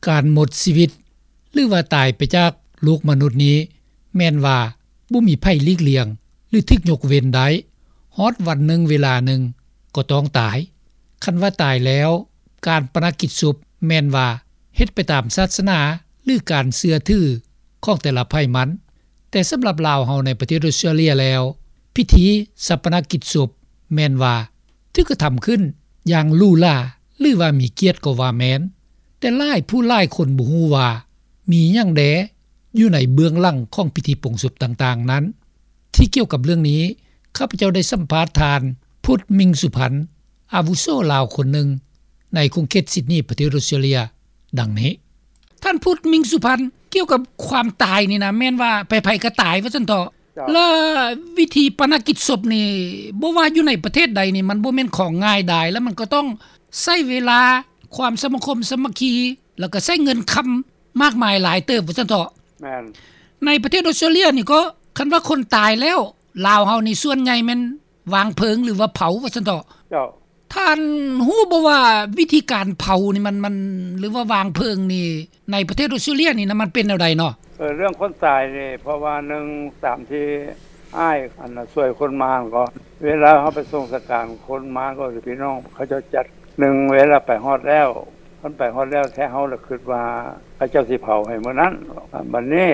ການໝົດຊີວິດ ຫຼືວ່າຕາຍໄປຈາກໂລກມະນຸດນີ້ ແມ່ນວ່າບໍ່ມີໃຜຫຼີກລ່ຽງ ຫຼືຖືກຍົກເວັ້ນໄດ້ ຮອດວັນໜຶ່ງເວລາໜຶ່ງກໍຕ້ອງຕາຍ. ຄັນວ່າຕາຍແລ້ວ ການປະນະກິດສົບແມ່ນວ່າເຮັດໄປຕາມສາສະໜາ ຫຼືການເຊື່ອຖືຂອງແຕ່ລະໃຜມັນ. ແຕ່ສຳລັບລາວເຮົາໃນປະເທດອອສເຕຣເລັຍແລ້ວ ພິທີຊາປະນະກິດສົບແມ່ນວ່າຖືກກະທຳຂຶ້ນຢ່າງຫຼູຫຼາ ຫຼືວ່າມີກຽດກໍວ່າແມ່ນ. ແຕ່ຫຼາຍຜູ້ຫຼາຍຄົນບໍ່ຮູ້ວ່າມີຫຍັງແດ່ຢູ່ໃນເບື້ອງຫຼັງຂອງພິທີປົງສົບຕ່າງໆນັ້ນ. ທີ່ກ່ຽວກັບເລື່ອງນີ້ ຂ້າພະເຈົ້າໄດ້ສຳພາດທ່ານ ພຸດ ມິງສຸພັນ ອາວຸໂສລາວຄົນໜຶ່ງໃນຂົງເຂດຊິດນີ ປະເທດອອສເຕຣເລັຍ ດັ່ງນີ້. ທ່ານ ພຸດ ມິງສຸພັນ ກ່ຽວກັບຄວາມຕາຍນີ້ນະ ແມ່ນວ່າໃຜໆກໍຕາຍວ່າຊັ້ນເຖາະ. ເຈົ້າ. ແລະວິທີປະນະກິດສົບນີ້ ບໍ່ວ່າຢູ່ໃນປະເທດໃດນີ້ ມັນບໍ່ແມ່ນຂອງງ່າຍດາຍ ແລະມັນກໍຕ້ອງໃຊ້ເວລາ ຄວາມສະມາຄົມສາມັກຄີ ແລ້ວກໍໃຊ້ເງິນຄຳມາກມາຍຫຼາຍເຕີບວ່າຊັ້ນເຖາະ. ແມ່ນ. ໃນປະເທດອອສເຕຣເລັຍນີ້ກໍ ຄັນວ່າຄົນຕາຍແລ້ວ ລາວເຮົານີ້ສ່ວນໃຫຍ່ແມ່ນ ວາງເພີງ ຫຼືວ່າເຜົາວ່າຊັ້ນເຖາະ. ເຈົ້າ. ທ່ານຮູ້ບໍ່ວ່າວິທີການເຜົານີ້ມັນ ມັນ ຫຼືວ່າວາງເພີງນີ້ ໃນປະເທດອອສເຕຣເລັຍນີ້ນະ ມັນເປັນແນວໃດເນາະ? ເອີ ເລື່ອງຄົນຕາຍນີ້ ເພາະວ່າໜຶ່ງ ຕາມທີ່ອ້າຍ ອັນນ່າ ຊ່ວຍຄົນມາກໍ ເວລາເຮົາໄປສົ່ງສະການຄົນມາກໍ ພີ່ນ້ອງເຂົາເຈົ້າຈັດ ໜຶ່ງ ເວລາໄປຮອດແລ້ວ ຄັນໄປຮອດແລ້ວແທ້ ເຮົາລະຄິດວ່າເຂົາເຈົ້າຊິເຜົາໃຫ້ມື້ນັ້ນ. ບັດນີ້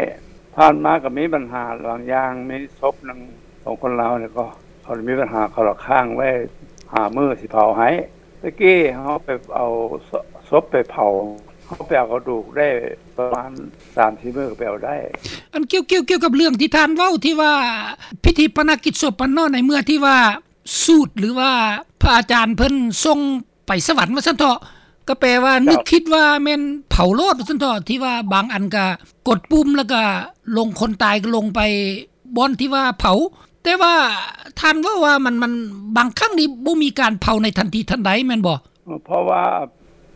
ຜ່ານມາກໍມີບັນຫາບາງຢ່າງ ມີສົບໜຶ່ງຂອງຄົນລາວນີ້ກໍ ເຂົາມີບັນຫາ ເຂົາລະຄ້າງໄວ້ຫ້າມື້ຊິເຜົາໃຫ້. ແຕ່ກີ້ເຮົາໄປເອົາສົບໄປເຜົາ ເຮົາໄປເອົາກະດູກໄດ້ປະມານສາມສີ່ມື້ກໍໄປເອົາໄດ້. ອັນກ່ຽວ ກ່ຽວ ກ່ຽວກັບເລື່ອງທີ່ທ່ານເວົ້າ ທີ່ວ່າພິທີປະນະກິດສົບຫັ້ນເນາະ ໃນເມື່ອທີ່ວ່າສູດ ຫຼືວ່າພະອາຈານເພິ່ນສົ່ງໄປສະຫວັນວ່າຊັ້ນເຖາະ ກໍແປວ່າ ເຈົ້າ ນຶກຄິດວ່າແມ່ນເຜົາໂລດວ່າຊັ້ນເຖາະ ທີ່ວ່າບາງອັນກໍກົດປຸ່ມ ແລ້ວກໍລົງ ຄົນຕາຍກໍລົງໄປບ່ອນທີ່ວ່າເຜົາ. ແຕ່ວ່າທ່ານເວົ້າວ່າມັນ ມັນ ບາງຄັ້ງນີ້ບໍ່ມີການເຜົາໃນທັນທີທັນໃດແມ່ນບໍ່? ເພາະວ່າ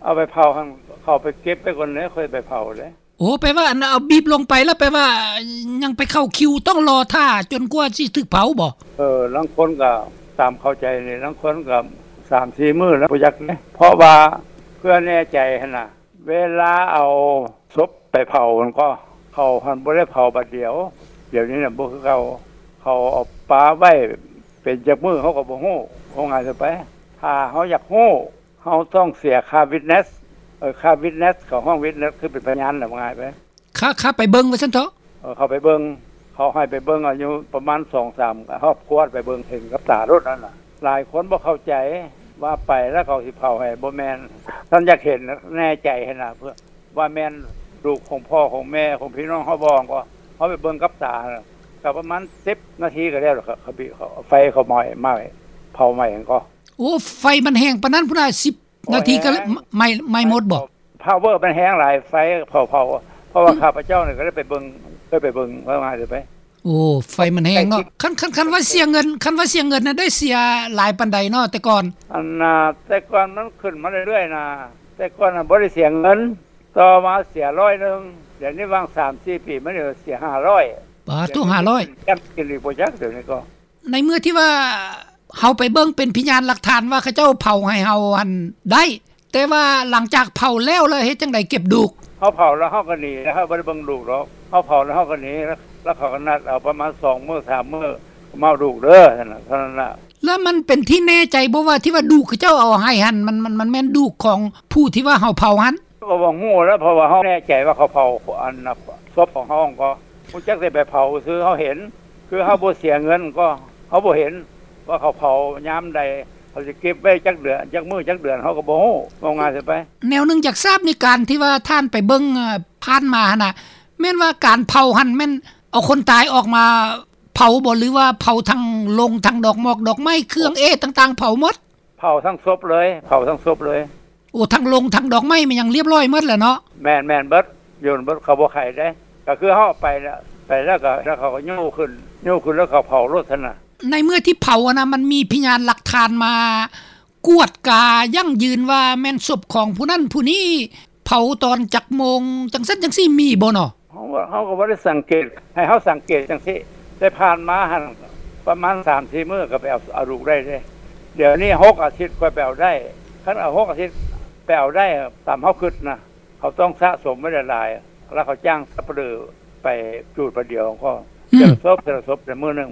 ເອົາໄປເຜົາຫັ້ນ ເຂົາໄປເກັບໄປກ່ອນເດ້ ຄ່ອຍໄປເຜົາເດ້. ໂອ້ ແປວ່າອັນເອົາບີບລົງໄປແລ້ວ ແປວ່າຍັງໄປເຂົ້າຄິວ ຕ້ອງລໍຖ້າຈົນກວ່າຊິຖືກເຜົາບໍ? ເອີ ລາງຄົນກໍຕາມເຂົ້າໃຈນີ້ ລາງຄົນກໍສາມສີ່ມື້ແລ້ວ ບໍ່ຈັກເດ້. ເພາະວ່າເພື່ອແນ່ໃຈຫັ້ນນະ ເວລາເອົາສົບໄປເຜົາຫັ້ນກໍ ເຂົາຫັ້ນບໍ່ໄດ້ເຜົາບາດດຽວ. ດຽວນີ້ນະບໍ່ຄືເກົ່າ ເຂົາເອົາປະໄວ້ເປັນຈັກມື້ເຮົາກໍບໍ່ຮູ້. ເວົ້າງ່າຍຊະໄປ ຖ້າເຮົາຢາກຮູ້ ເຮົາຕ້ອງເສຍຄ່າວິດເນສ ເອີ ຄ່າວິດເນສ ເຂົາຮ້ອງວິດເນສ ຄືເປັນພະຍານນະ ວ່າງ່າຍໄປ. ຄ່າ ຄ່າໄປເບິ່ງວ່າຊັ້ນເຖາະ. ເອີ ເຂົາໄປເບິ່ງ ເຂົາໃຫ້ໄປເບິ່ງ ອາຍຸປະມານສອງສາມຄອບຄົວ ໄປເບິ່ງເຫັນກັບຕາໂລດນັ້ນນະ. ຫຼາຍຄົນບໍ່ເຂົ້າໃຈວ່າໄປແລ້ວເຂົາຊິເຜົາໃຫ້ ບໍ່ແມ່ນ. ທ່ານຢາກເຫັນ ແນ່ໃຈຫັ້ນນະ ເພື່ອວ່າແມ່ນລູກຂອງພໍ່ຂອງແມ່ຂອງພີ່ນ້ອງເຮົາບໍ່ ກໍເຮົາໄປເບິ່ງກັບຕາ ກໍປະມານສິບນາທີກໍແລ້ວ ເຂົາ ເຂົາ ເຂົາ ໄຟເຂົາໄໝ້ ໄໝ້ ເຜົາໄໝ້ຫັ້ນກໍ. ໂອ້ ໄຟມັນແຮງປານນັ້ນພຸ້ນນະ ສິບນາທີກໍໄໝ້ ໄໝ້ໝົດບໍ? ພາວເວີມັນແຮງຫຼາຍ ໄຟເຜົາ ເຜົາ ເພາະວ່າຂ້າພະເຈົ້ານີ້ກໍໄດ້ໄປເບິ່ງ ເຄີຍໄປເບິ່ງ ວ່າງ່າຍຊະໄປ. ໂອ້ ໄຟມັນແຮງເນາະ. ຄັນ ຄັນ ຄັນວ່າເສຍເງິນ ຄັນວ່າເສຍເງິນນະ ໄດ້ເສຍຫຼາຍປານໃດເນາະແຕ່ກ່ອນ? ອັນນ່າ ແຕ່ກ່ອນມັນຂຶ້ນມາເລື້ອຍໆນະ ແຕ່ກ່ອນນະບໍ່ໄດ້ເສຍເງິນ ຕໍ່ມາເສຍຮ້ອຍໜຶ່ງ ດຽວນີ້ຫວ່າງສາມສີ່ປີມານີ້ເສຍຫ້າຮ້ອຍ. ປາໂທ້ ຫ້າຮ້ອຍ ຈຳກິນອີກບໍ່ຈັກ ດຽວນີ້ກໍ. ໃນເມື່ອທີ່ວ່າເຮົາໄປເບິ່ງເປັນພະຍານຫຼັກຖານວ່າເຂົາເຈົ້າເຜົາໃຫ້ເຮົາຫັ້ນໄດ້ ແຕ່ວ່າຫຼັງຈາກເຜົາແລ້ວ ແລ້ວເຮັດຈັ່ງໃດເກັບດູກ? ເຮົາເຜົາແລ້ວເຮົາກໍໜີ ເຮົາບໍ່ໄດ້ເບິ່ງດູກດອກ. ເຮົາເຜົາແລ້ວເຮົາກໍໜີ ແລ້ວເຂົາກໍນັດເອົາປະມານສອງມື້ສາມມື້ ມາເອົາດູກເດີ ເທົ່ານັ້ນນະ. ແລ້ວມັນເປັນທີ່ແນ່ໃຈບໍ່ວ່າ ທີ່ວ່າດູກເຂົາເຈົ້າເອົາໃຫ້ຫັ້ນ ມັນ ມັນ ມັນແມ່ນດູກຂອງຜູ້ທີ່ວ່າເຮົາເຜົາຫັ້ນ? ກໍບໍ່ຮູ້ແລ້ວ ເພາະວ່າເຮົາແນ່ໃຈວ່າເຂົາເຜົາອັນນະ ສົບຂອງເຮົາ ກໍຮູ້ຈັກແຕ່ໄປເຜົາຊື່ ເຮົາເຫັນ ຄືເຮົາບໍ່ເສຍເງິນ ກໍເຮົາບໍ່ເຫັນວ່າເຂົາເຜົາຍາມໃດ ເຂົາຊິເກັບໄວ້ຈັກເດືອນ ຈັກມື້ ຈັກເດືອນ ເຮົາກໍບໍ່ຮູ້ ເວົ້າງ່າຍຊະໄປ. ແນວໜຶ່ງຢາກຊາບໃນການທີ່ວ່າທ່ານໄປເບິ່ງ ເອີ ຜ່ານມາຫັ້ນນະ ແມ່ນວ່າການເຜົາຫັ້ນແມ່ນເອົາຄົນຕາຍອອກມາ ເຜົາບໍ່ ຫຼືວ່າເຜົາທັງໂລງ ທັງດອກໝອກດອກໄມ້ ເຄື່ອງເອດຕ່າງໆ ເຜົາໝົດ? ເຜົາທັງສົບເລີຍ ເຜົາທັງສົບເລີຍ. ໂອ້ ທັງໂລງ ທັງດອກໄມ້ ແມ່ນຫຍັງລຽບລ້ອຍໝົດແລ້ວເນາະ? ແມ່ນໆ ເບິດ ໂຍນເບິດ ເຂົາບໍ່ໄຂເດ້. ກໍຄືເຮົາໄປແລ້ວ ໄປແລ້ວກໍ ແລ້ວເຂົາກໍຍູ້ຂຶ້ນ ຍູ້ຂຶ້ນແລ້ວເຂົາເຜົາໂລດຊັ້ນນະ. ໃນເມື່ອທີ່ເຜົາຫັ້ນນະ ມັນມີພະຍານຫຼັກຖານມາກວດກາຢັ້ງຢືນວ່າແມ່ນສົບຂອງຜູ້ນັ້ນຜູ້ນີ້ ເຜົາຕອນຈັກໂມງ ຈັ່ງຊັ້ນຈັ່ງຊີ້ ມີບໍ່ເນາະ? ເຮົາ ເຮົາກໍບໍ່ໄດ້ສັງເກດ ໃຫ້ເຮົາສັງເກດຈັ່ງຊີ້ ແຕ່ຜ່ານມາຫັ້ນ ປະມານສາມສີ່ມື້ກໍໄປເອົາ ເອົາລູກໄດ້ເດ້. ດຽວນີ້ຫົກອາທິດຄ່ອຍໄປເອົາໄດ້. ຄັນເອົາຫົກອາທິດໄປເອົາໄດ້ ຕາມເຮົາຄິດນະ ເຂົາຕ້ອງສະສົມໄວ້ຫຼາຍໆ ແລ້ວເຂົາຈ້າງສັບປະເລີໄປຈູດບາດດຽວກໍ ອືມ ເທື່ອລະສົບ ເທື່ອລະສົບ ແຕ່ມື້ໜຶ່ງ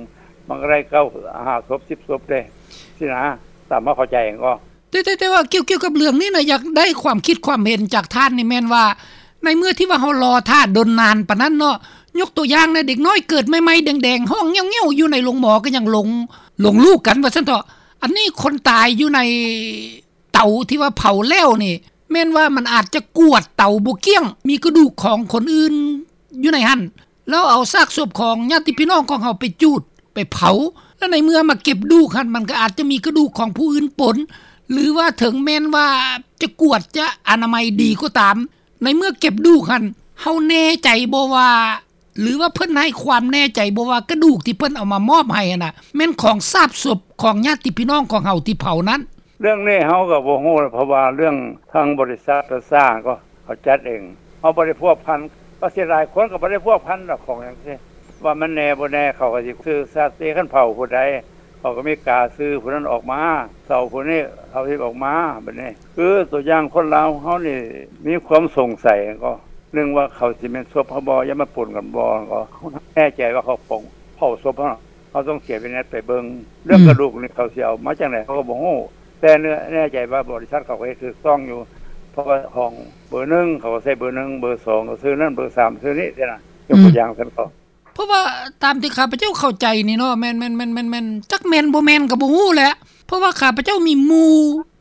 ມັນກໍໄດ້ເກົ້າ ຫ້າສົບ ສິບສົບເດ້ ຊີ້ນະ ຕາມເຮົາເຂົ້າໃຈກໍ. ແຕ່ ແຕ່ ແຕ່ວ່າກ່ຽວ ກ່ຽວກັບເລື່ອງນີ້ນະ ຢາກໄດ້ຄວາມຄິດຄວາມເຫັນຈາກທ່ານນີ້ ແມ່ນວ່າ ໃນເມື່ອທີ່ວ່າເຮົາລໍຖ້າດົນນານປານນັ້ນເນາະ ຍົກຕົວຢ່າງນະ ເດັກນ້ອຍເກີດໃໝ່ໆ ແດງໆ ຮ້ອງແງ້ວໆ ຢູ່ໃນໂຮງໝໍກໍຍັງຫຼົງ ຫຼົງລູກກັນວ່າຊັ້ນເຖາະ. ອັນນີ້ຄົນຕາຍຢູ່ໃນເຕົາທີ່ວ່າເຜົາແລ້ວນີ້ ແມ່ນວ່າມັນອາດຈະກວດເຕົາບໍ່ກ້ຽງ ມີກະດູກຂອງຄົນອື່ນຢູ່ໃນຫັ້ນ ແລ້ວເອົາຊາກສົບຂອງຍາດຕິພີ່ນ້ອງຂອງເຮົາໄປຈູດ ໄປເຜົາ ແລ້ວໃນເມື່ອມາເກັບດູກຫັ້ນ ມັນກໍອາດຈະມີກະດູກຂອງຜູ້ອື່ນປົນ ຫຼືວ່າເຖິງແມ່ນວ່າຈະກວດ ຈະອະນາໄມດີກໍຕາມ ໃນເມື່ອເກັບດູກຫັ້ນ ເຮົາແນ່ໃຈບໍ່ວ່າ ຫຼືວ່າເພິ່ນໃຫ້ຄວາມແນ່ໃຈບໍ່ວ່າ ກະດູກທີ່ເພິ່ນເອົາມາມອບໃຫ້ຫັ້ນນະ ແມ່ນຂອງຊາກສົບຂອງຍາດຕິພີ່ນ້ອງຂອງເຮົາທີ່ເຜົານັ້ນ? ເລື່ອງນີ້ເຮົາກໍບໍ່ຮູ້ ເພາະວ່າເລື່ອງທາງບໍລິສັດປະຊາກໍເຂົາຈັດເອງ ເຮົາບໍ່ໄດ້ພົວພັນ ກໍເສຍດາຍ ຄົນກໍບໍ່ໄດ້ພົວພັນດອກ ຂອງຈັ່ງຊີ້ ວ່າມັນແນ່ບໍ່ແນ່ ເຂົາກໍຊິຊື່ສັດຕິ ຄັນເຜົາຜູ້ໃດ ເຂົາກໍມີກາຊື່ຜູ້ນັ້ນອອກມາ ເຊົາຜູ້ນີ້ເຊົາທີ່ອອກມາ ບັດນີ້ ຄືຕົວຢ່າງຄົນລາວເຮົານີ້ມີຄວາມສົງໄສກໍ ໜຶ່ງວ່າເຂົາຊິແມ່ນສົບເຮົາບໍ່ ຢ່າມາປົນກັນບໍ່ ກໍແນ່ໃຈວ່າເຂົາເຜົາ ເຜົາສົບເຮົາ ເຮົາຕ້ອງເສຍວິໄນໄປເບິ່ງ ເລື່ອງ ອືມ ກະດູກນີ້ເຂົາຊິເອົາມາຈັ່ງໃດ ເຮົາກໍບໍ່ຮູ້ ແຕ່ເນື້ອແນ່ໃຈວ່າບໍລິສັດເຂົາກໍເຮັດຖືກຕ້ອງຢູ່ ເພາະວ່າຫ້ອງເບີໜຶ່ງ ເຂົາກໍໃສ່ເບີໜຶ່ງ ເບີສອງກໍຊື່ນັ້ນ ເບີສາມຊື່ນີ້ຊີ້ນະ ຍົກຕົວຢ່າງຊັ້ນກໍ ເພາະວ່າຕາມທີ່ຂ້າພະເຈົ້າເຂົ້າໃຈນີ້ເນາະ ແມ່ນ ແມ່ນ ແມ່ນ ແມ່ນ ຈັກແມ່ນບໍ່ແມ່ນກໍບໍ່ຮູ້ແຫຼະ ເພາະວ່າຂ້າພະເຈົ້າມີໝູ່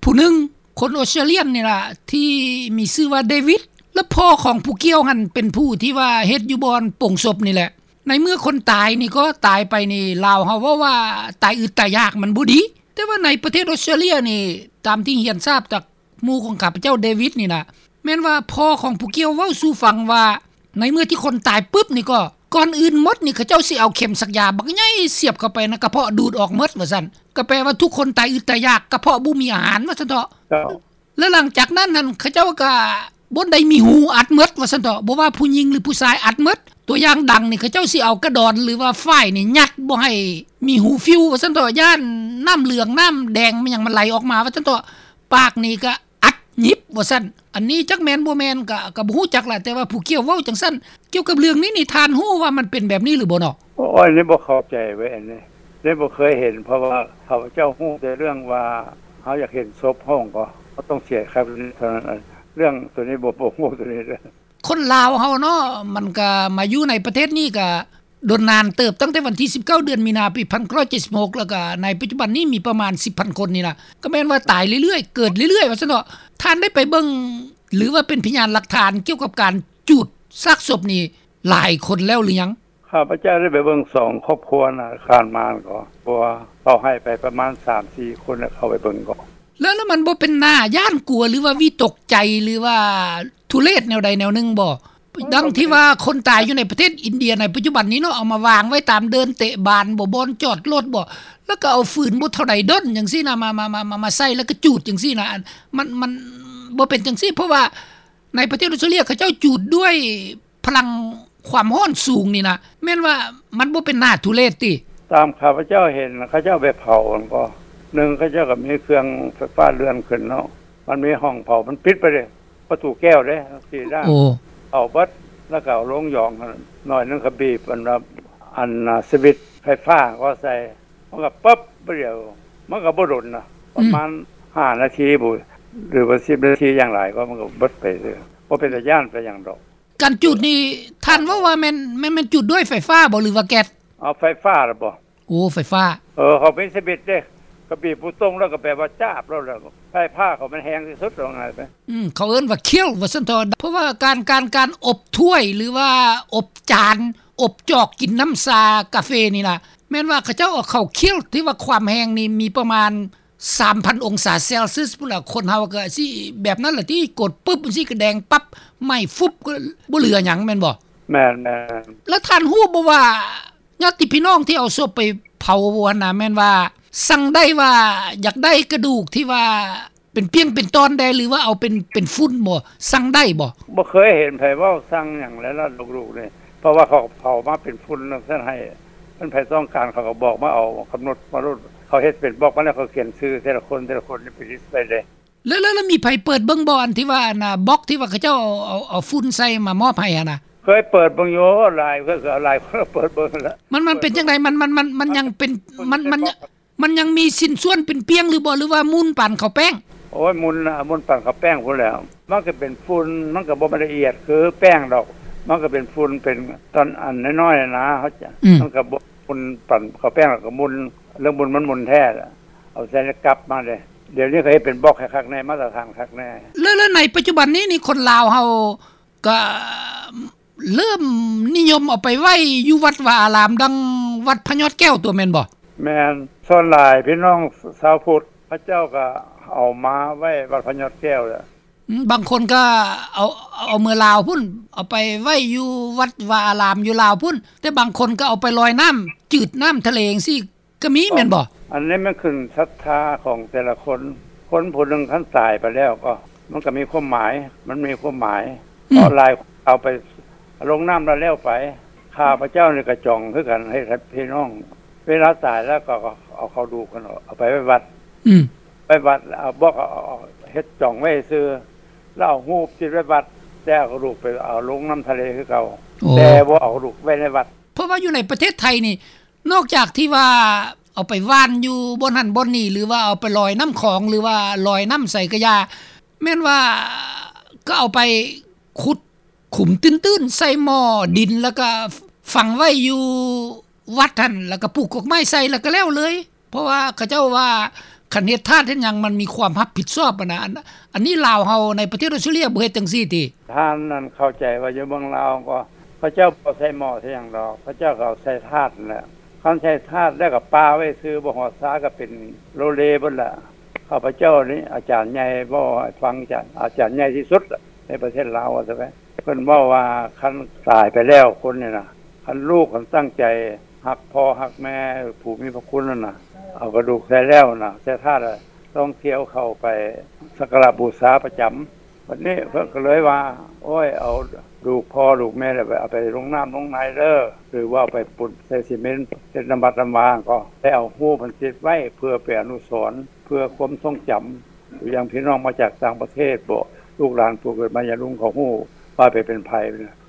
ຜູ້ໜຶ່ງ ຄົນອອສເຕຣເລຍນີ້ລະ ທີ່ມີຊື່ວ່າເດວິດ ແລະ ພໍ່ຂອງຜູ້ກ່ຽວຫັ້ນເປັນຜູ້ທີ່ວ່າເຮັດຢູ່ບ່ອນໂປງສົບນີ້ແຫຼະ. ໃນເມື່ອຄົນຕາຍນີ້ກໍຕາຍໄປນີ້ ລາວເຮົາເວົ້າວ່າຕາຍອຶດຕາຍຢາກມັນບໍ່ດີ ແຕ່ວ່າໃນປະເທດອອສເຕຣເລຍນີ້ ຕາມທີ່ຮຽນຊາບຈາກ ໝູ່ຂອງຂ້າພະເຈົ້າເດວິດນີ້ນະ ແມ່ນວ່າພໍ່ຂອງຜູ້ກ່ຽວເວົ້າສູ່ຟັງວ່າ ໃນເມື່ອທີ່ຄົນຕາຍປຶບນີ້ກໍ ກ່ອນອື່ນໝົດນີ້ ເຂົາເຈົ້າຊິເອົາເຂັມສັກຢາບັກໃຫຍ່ສຽບເຂົ້າໄປໃນກະເພາະ ດູດອອກໝົດວ່າຊັ້ນ ກໍແປວ່າທຸກຄົນຕາຍອຶດຕາຍຢາກ ກະເພາະບໍ່ມີອາຫານວ່າຊັ້ນເຖາະ. ເຈົ້າ. ແລະ ຫຼັງຈາກນັ້ນຫັ້ນ ເຂົາເຈົ້າກໍບໍ່ໄດ້ມີຮູອັດໝົດວ່າຊັ້ນເຖາະ ບໍ່ວ່າຜູ້ຍິງ ຫຼື ຜູ້ຊາຍ ອັດໝົດ. ຕົວຢ່າງດັງນີ້ ເຂົາເຈົ້າຊິເອົາກະດອນ ຫຼືວ່າຝ້າຍນີ້ຍັດບໍ່ໃຫ້ມີຮູຟິວວ່າຊັ້ນເຖາະ ຢ້ານນ້ຳເຫຼືອງນ້ຳແດງແມ່ນຫຍັງມັນໄຫຼອອກມາວ່າຊັ້ນເຖາະ ປາກນີ້ກໍອັດຫຍິບວ່າຊັ້ນ. ອັນນີ້ຈັກແມ່ນບໍ່ແມ່ນກໍ ກໍບໍ່ຮູ້ຈັກລະ ແຕ່ວ່າຜູ້ກ່ຽວເວົ້າຈັ່ງຊັ້ນ. ກ່ຽວກັບເລື່ອງນີ້ນີ້ ທ່ານຮູ້ວ່າມັນເປັນແບບນີ້ຫຼືບໍ່ເນາະ? ໂອ້ຍ ນີ້ບໍ່ເຂົ້າໃຈເວີຍ ອັນນີ້ ນີ້ບໍ່ເຄີຍເຫັນ ເພາະວ່າຂ້າພະເຈົ້າຮູ້ແຕ່ເລື່ອງວ່າ ເຮົາຢາກເຫັນສົບເຮົາກໍ ເຮົາຕ້ອງເສຍຄ່າເທົ່ານັ້ນ ເລື່ອງໂຕນີ້ບໍ່ ບໍ່ຮູ້ໂຕນີ້ເດີ້. ຄົນລາວເຮົາເນາະ ມັນກະມາຢູ່ໃນປະເທດນີ້ກະດົນນານເຕີບ ຕັ້ງແຕ່ວັນທີສິບເກົ້າ ເດືອນມີນາ ປີພັນເກົ້າຮ້ອຍເຈັດສິບຫົກ ແລ້ວກະໃນປັດຈຸບັນນີ້ມີປະມານສິບພັນຄົນນີ້ລະ ກໍແມ່ນວ່າຕາຍເລື້ອຍໆ ເກີດເລື້ອຍໆ ວ່າຊັ້ນເຖາະ. ທ່ານໄດ້ໄປເບິ່ງ ຫຼືວ່າເປັນພະຍານຫຼັກຖານກ່ຽວກັບການຈູດຊາກສົບນີ້ຫຼາຍຄົນແລ້ວຫຼືຍັງ? ຂ້າພະເຈົ້າໄດ້ໄປເບິ່ງສອງຄອບຄົວນະ ຂ້າມມາກໍ ເພາະວ່າເຂົາໃຫ້ໄປປະມານສາມສີ່ຄົນ ແລ້ວເຂົາໄປເບິ່ງກໍ ແລ້ວ ແລ້ວມັນບໍ່ເປັນໜ້າຢ້ານກົວ ຫຼືວ່າວິຕົກໃຈ ຫຼືວ່າທຸເລດແນວໃດແນວໜຶ່ງບໍ່? ເອີ ດັ່ງທີ່ວ່າຄົນຕາຍຢູ່ໃນປະເທດອິນເດຍໃນປັດຈຸບັນນີ້ເນາະ ເອົາມາວາງໄວ້ຕາມເດີ່ນເຕະບານບໍ ບ່ອນຈອດລົດບໍ ແລ້ວກໍເອົາຟືນບໍ່ເທົ່າໃດດົນຈັ່ງຊີ້ນະ ມາ ມາ ມາ ມາ ມາໃສ່ ແລ້ວກໍຈູດຈັ່ງຊີ້ນະ ອັນ ມັນ ມັນບໍ່ເປັນຈັ່ງຊີ້ ເພາະວ່າໃນປະເທດອອສເຕຣເລຍເຂົາເຈົ້າຈູດດ້ວຍ ພະລັງຄວາມຮ້ອນສູງນີ້ນະ ແມ່ນວ່າມັນບໍ່ເປັນໜ້າທຸເລດຕິ? ຕາມຂ້າພະເຈົ້າເຫັນ ເຂົາເຈົ້າໄປເຜົາຫັ້ນກໍ ໜຶ່ງ ເຂົາເຈົ້າກໍມີເຄື່ອງໄຟຟ້າເລື່ອນຂຶ້ນເນາະ ມັນມີຫ້ອງເຜົາ ມັນປິດໄປເດ້ ປະຕູແກ້ວເດ້ ສີ່ດ້ານ ໂອ້ ເຜົາເບິດ ແລ້ວກໍເອົາລົງຢອງໜ້ອຍໜຶ່ງ ກໍບີບອັນວ່າ ອັນສະວິດໄຟຟ້າກໍໃສ່ ມັນກໍປຶບ ບາດດຽວ ມັນກໍບໍ່ດົນນະ ປະມານ ອືມ ຫ້ານາທີບໍ ຫຼືວ່າສິບນາທີຢ່າງຫຼາຍກໍ ມັນກໍເບິດໄປເລີຍ ບໍ່ເປັນຕາຢ້ານປານຫຍັງດອກ. ການຈູດນີ້ ທ່ານເວົ້າວ່າແມ່ນ ແມ່ນ ແມ່ນຈູດດ້ວຍໄຟຟ້າບໍ ຫຼືວ່າແກັດ? ເອົາໄຟຟ້າລະບໍ? ໂອ້ ໄຟຟ້າ. ເອີ ເຂົາມີສະວິດເດ້ ກໍບີບປູຕົງ ແລ້ວກໍແປວ່າຈາບໂລດ ແລ້ວໄຟຟ້າເຂົາມັນແຮງທີ່ສຸດ ວ່າງ່າຍໄປ. ອືມ ເຂົາເອີ້ນວ່າ kiln ວ່າຊັ້ນເຖາະ ເພາະວ່າການ ການ ການອົບຖ້ວຍ ຫຼືວ່າອົບຈານ ອົບຈອກກິນນ້ຳຊາກາເຟນີ້ນະ ແມ່ນວ່າເຂົາເຈົ້າເອົາເຂົ້າ kiln ທີ່ວ່າຄວາມແຮງນີ້ມີປະມານ ສາມພັນອົງສາເຊລຊຽສພຸ້ນລະ ຄົນເຮົາກໍຊິແບບນັ້ນລະຕິ ກົດປຶບຈັ່ງຊີ້ກໍແດງປັບ ໄໝ້ຟຸບ ກໍບໍ່ເຫຼືອຫຍັງແມ່ນບໍ່? ແມ່ນໆ. ແລ້ວທ່ານຮູ້ບໍ່ວ່າ ຍາດຕິພີ່ນ້ອງທີ່ເອົາສົບໄປເຜົາຫັ້ນນະ ແມ່ນວ່າສັ່ງໄດ້ວ່າຢາກໄດ້ກະດູກທີ່ວ່າເປັນປ່ຽງເປັນຕອນແດ່ ຫຼືວ່າເອົາເປັນ ເປັນຝຸ່ນບໍ່? ສັ່ງໄດ້ບໍ່? ບໍ່ເຄີຍເຫັນໃຜເວົ້າສັ່ງຫຍັງແລ້ວລະ ລູກໆນີ້ ເພາະວ່າເຂົາເຜົາມາເປັນຝຸ່ນຈັ່ງຊັ້ນໃຫ້ ຄັນໃຜຕ້ອງການເຂົາກໍບອກມາເອົາ ກຳນົດມາໂລດ ເຂົາເຮັດເປັນບລັອກມາແລ້ວ ເຂົາຂຽນຊື່ແຕ່ລະຄົນ ແຕ່ລະຄົນນີ້ໄປລິດໄປເດ້. ແລ້ວ ແລ້ວ ແລ້ວມີໃຜເປີດເບິ່ງບໍ່ ອັນທີ່ວ່າ ອັນນ່າ ບັອກທີ່ວ່າເຂົາເຈົ້າເອົາ ເອົາຝຸ່ນໃສ່ມາມອບໃຫ້ຫັ້ນນະ? ເຄີຍເປີດເບິ່ງຢູ່ ຫຼາຍ ເຄີຍ ເຄີຍຫຼາຍຄົນເປີດເບິ່ງແລ້ວ. ມັນ ມັນເປັນຈັ່ງໃດ? ມັນ ມັນ ມັນ ມັນຍັງເປັນ ມັນ ມັນ ມັນຍັງມີຊິ້ນສ່ວນເປັນປ່ຽງຫຼືບໍ່ ຫຼືວ່າໝຸ່ນປານເຂົ້າແປ້ງ? ໂອ້ຍ ໝຸ່ນນະ ໝຸ່ນປານເຂົ້າແປ້ງພຸ້ນແຫຼ້ວ. ມັນກໍເປັນຝຸ່ນ ມັນກໍບໍ່ແມ່ນລະອຽດຄືແປ້ງດອກ ມັນກໍເປັນຝຸ່ນ ເປັນຕອນອັນນ້ອຍໆນະ ເຮົາຈະ ອືມ ມັນກໍບໍ່ໝຸ່ນປານເຂົ້າແປ້ງ ແລ້ວກໍໝຸ່ນ ເລື່ອງໝຸ່ນມັນໝຸ່ນແທ້ລະ ເອົາໃສ່ໃນກັບມາເດ້. ດຽວນີ້ເຂົາເຮັດເປັນບັອກໃຫ້ຄັກແນ່ ມາດຕະຖານຄັກແນ່. ແລ້ວ ແລ້ວໃນປັດຈຸບັນນີ້ນີ້ ຄົນລາວເຮົາກໍເລີ່ມນິຍົມເອົາໄປໄວ້ຢູ່ວັດວາອາລາມ ດັ່ງວັດພະຍອດແກ້ວຕົວະ ແມ່ນບໍ່? ແມ່ນ ສ່ວນຫຼາຍພີ່ນ້ອງຊາວພຸດ ເຂົາເຈົ້າກໍເອົາມາໄວ້ວັດພະຍອດແກ້ວແຫຼະ. ອືມ ບາງຄົນກໍເອົາ ເອົາເມືອລາວພຸ້ນ ເອົາໄປໄວ້ຢູ່ວັດວາອາລາມຢູ່ລາວພຸ້ນ ແຕ່ບາງຄົນກໍເອົາໄປລອຍນ້ຳຈືດ ນ້ຳທະເລຈັ່ງຊີ້ກໍມີແມ່ນບໍ່? ອັນນີ້ມັນຂຶ້ນສັດທາຂອງແຕ່ລະຄົນ ຄົນຜູ້ໜຶ່ງຄັນຕາຍໄປແລ້ວກໍ ມັນກໍມີຄວາມໝາຍ ມັນມີຄວາມໝາຍ ອືມ ເພາະຫຼາຍເອົາໄປລົງນ້ຳແລ້ວ ແລ້ວໄປ. ຂ້າພະເຈົ້ານີ້ກໍຈອງຄືກັນ ໃຫ້ພີ່ນ້ອງ ເວລາຕາຍແລ້ວກໍເອົາເຂົາດູກຫັ້ນ ເອົາໄປໄວ້ວັດ ອືມ ໄປວັດ ເອົາບອກ ເອົາ ເຮັດຈອງໄວ້ຊື່ ແລ້ວເອົາຮູບຕິດໄວ້ວັດ ແຕ່ເອົາກະດູກໄປເອົາລົງນ້ຳທະເລຄືເກົ່າ. ໂອ້ ແຕ່ບໍ່ເອົາກະດູກໄວ້ໃນວັດ. ເພາະວ່າຢູ່ໃນປະເທດໄທນີ້ ນອກຈາກທີ່ວ່າເອົາໄປຫວ່ານຢູ່ບ່ອນຫັ້ນບ່ອນນີ້ ຫຼືວ່າເອົາໄປລອຍນ້ຳຂອງ ຫຼືວ່າລອຍນ້ຳໃສກະຢ່າ ແມ່ນວ່າກໍເອົາໄປຂຸດຂຸມຕື້ນໆ ໃສ່ໝໍ້ດິນ ແລ້ວກໍຝັງໄວ້ຢູ່ວັດຫັ້ນ ແລ້ວກໍປູກກົກໄມ້ໃສ່ ແລ້ວກໍແລ້ວເລີຍ. ເພາະວ່າເຂົາເຈົ້າວ່າ ຄັນເຮັດທາດເຮັດຫຍັງ ມັນມີຄວາມຮັບຜິດຊອບຫັ້ນນະ. ອັນ ອັນນີ້ລາວເຮົາໃນປະເທດອອສເຕຣເລຍບໍ່ເຮັດຈັ່ງຊີ້ຕິ? ທ່ານນັ້ນເຂົ້າໃຈວ່າຢູ່ເມືອງລາວກໍ ເຂົາເຈົ້າບໍ່ໃສ່ໝໍ້ໃສ່ຫຍັງດອກ ເຂົາເຈົ້າກໍເອົາໃສ່ທາດຫັ້ນແຫຼະ. ຄັນໃສ່ທາດແລ້ວກໍປະໄວ້ຊື່ ບໍ່ຮອດຊາກໍເປັນໂລເລເບິດລະ. ຂ້າພະເຈົ້ານີ້ ອາຈານໃຫຍ່ເວົ້າໃຫ້ຟັງ ອາຈານ ອາຈານໃຫຍ່ທີ່ສຸດໃນປະເທດລາວວ່າຊັ້ນໄປ ເພິ່ນເວົ້າວ່າ ຄັນຕາຍໄປແລ້ວຄົນນີ້ນະ ຄັນລູກຄັນຕັ້ງໃຈຮັກພໍ່ຮັກແມ່ ຜູ້ມີພະຄຸນນັ້ນນະ ເອົາກະດູກໃສ່ແລ້ວນະ ໃສ່ທາດ ຕ້ອງທ່ຽວເຂົ້າໄປສັກກາລະບູຊາປະຈຳ. ບັດນີ້ເພິ່ນກໍເລີຍວ່າ ໂອ້ຍ ເອົາດູກພໍ່ດູກແມ່ແລ້ວ ເອົາໄປລົງນ້ຳລົງໃນເດີ ຫຼືວ່າເອົາໄປປຸ້ນໃສ່ຊີເມັນ ເຮັດນ້ຳວັດນ້ຳວາ ກໍໄດ້ເອົາຮູບມັນຕິດໄວ້ ເພື່ອເປັນອະນຸສອນ ເພື່ອຄວາມຊົງຈຳ ຢ່າງພີ່ນ້ອງມາຈາກຕ່າງປະເທດບໍ ລູກຫຼານຜູ້ເກີດມາຍາລຸງເຂົາຮູ້ວ່າໄປເປັນໃຜ.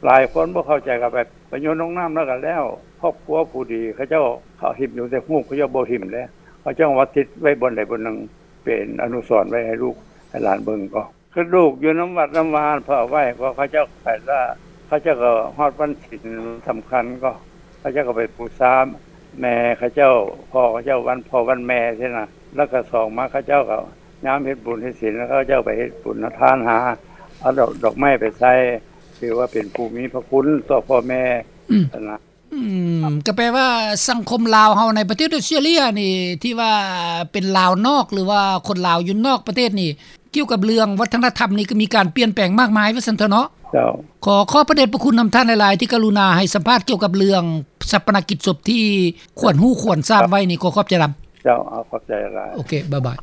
ຫຼາຍຄົນບໍ່ເຂົ້າໃຈ ກໍໄປ ໄປໂຍນລົງນ້ຳແລ້ວກໍແລ້ວ. ຄອບຄົວຜູ້ດີ ເຂົາເຈົ້າ ເຂົາຖິ້ມຢູ່ແຕ່ຮູບ ເຂົາເຈົ້າບໍ່ຖິ້ມເດ້ ເຂົາເຈົ້າມາຕິດໄວ້ບ່ອນໃດບ່ອນໜຶ່ງ ເປັນອະນຸສອນໄວ້ໃຫ້ລູກໃຫ້ຫຼານເບິ່ງ. ກໍຄືລູກຢູ່ນຳວັດນຳວາເພິ່ນເອົາໄວ້ ກໍເຂົາເຈົ້າໄປລະ ເຂົາເຈົ້າກໍຮອດວັນສິນສຳຄັນ ກໍເຂົາເຈົ້າກໍໄປບູຊາແມ່ເຂົາເຈົ້າ ພໍ່ເຂົາເຈົ້າ ວັນພໍ່ວັນແມ່ຊີ້ນະ. ແລ້ວກໍສອງມາ ເຂົາເຈົ້າກໍຍາມເຮັດບຸນເຮັດສິນ ເຂົາເຈົ້າໄປເຮັດບຸນທານ ຫາເອົາດອກ ດອກໄມ້ໄປໃສ່ ຖືວ່າເປັນຜູ້ມີພະຄຸນຕໍ່ພໍ່ແມ່ ອືມ ຫັ້ນນະ. ອືມ ກໍແປວ່າສັງຄົມລາວເຮົາໃນປະເທດອອສເຕຣເລຍນີ້ ທີ່ວ່າເປັນລາວນອກ ຫຼືວ່າຄົນລາວຢູ່ນອກປະເທດນີ້ ກ່ຽວກັບເລື່ອງວັດທະນະທຳນີ້ ກໍມີການປ່ຽນແປງມາກມາຍວ່າຊັ້ນເຖາະເນາະ. ເຈົ້າ ຂໍຂອບພະເດດຽດພະຄຸນນຳທ່ານຫຼາຍໆ ທີ່ກະລຸນາໃຫ້ສຳພາດກ່ຽວກັບເລື່ອງຊາປະນະກິດສົບທີ່ຄວນຮູ້ຄວນຊາບໄວ້ນີ້. ຂໍຂອບໃຈນຳ. ເຈົ້າ ເອົາ ຂອບໃຈຫຼາຍ. ໂອເຄ ບາຍບາຍ.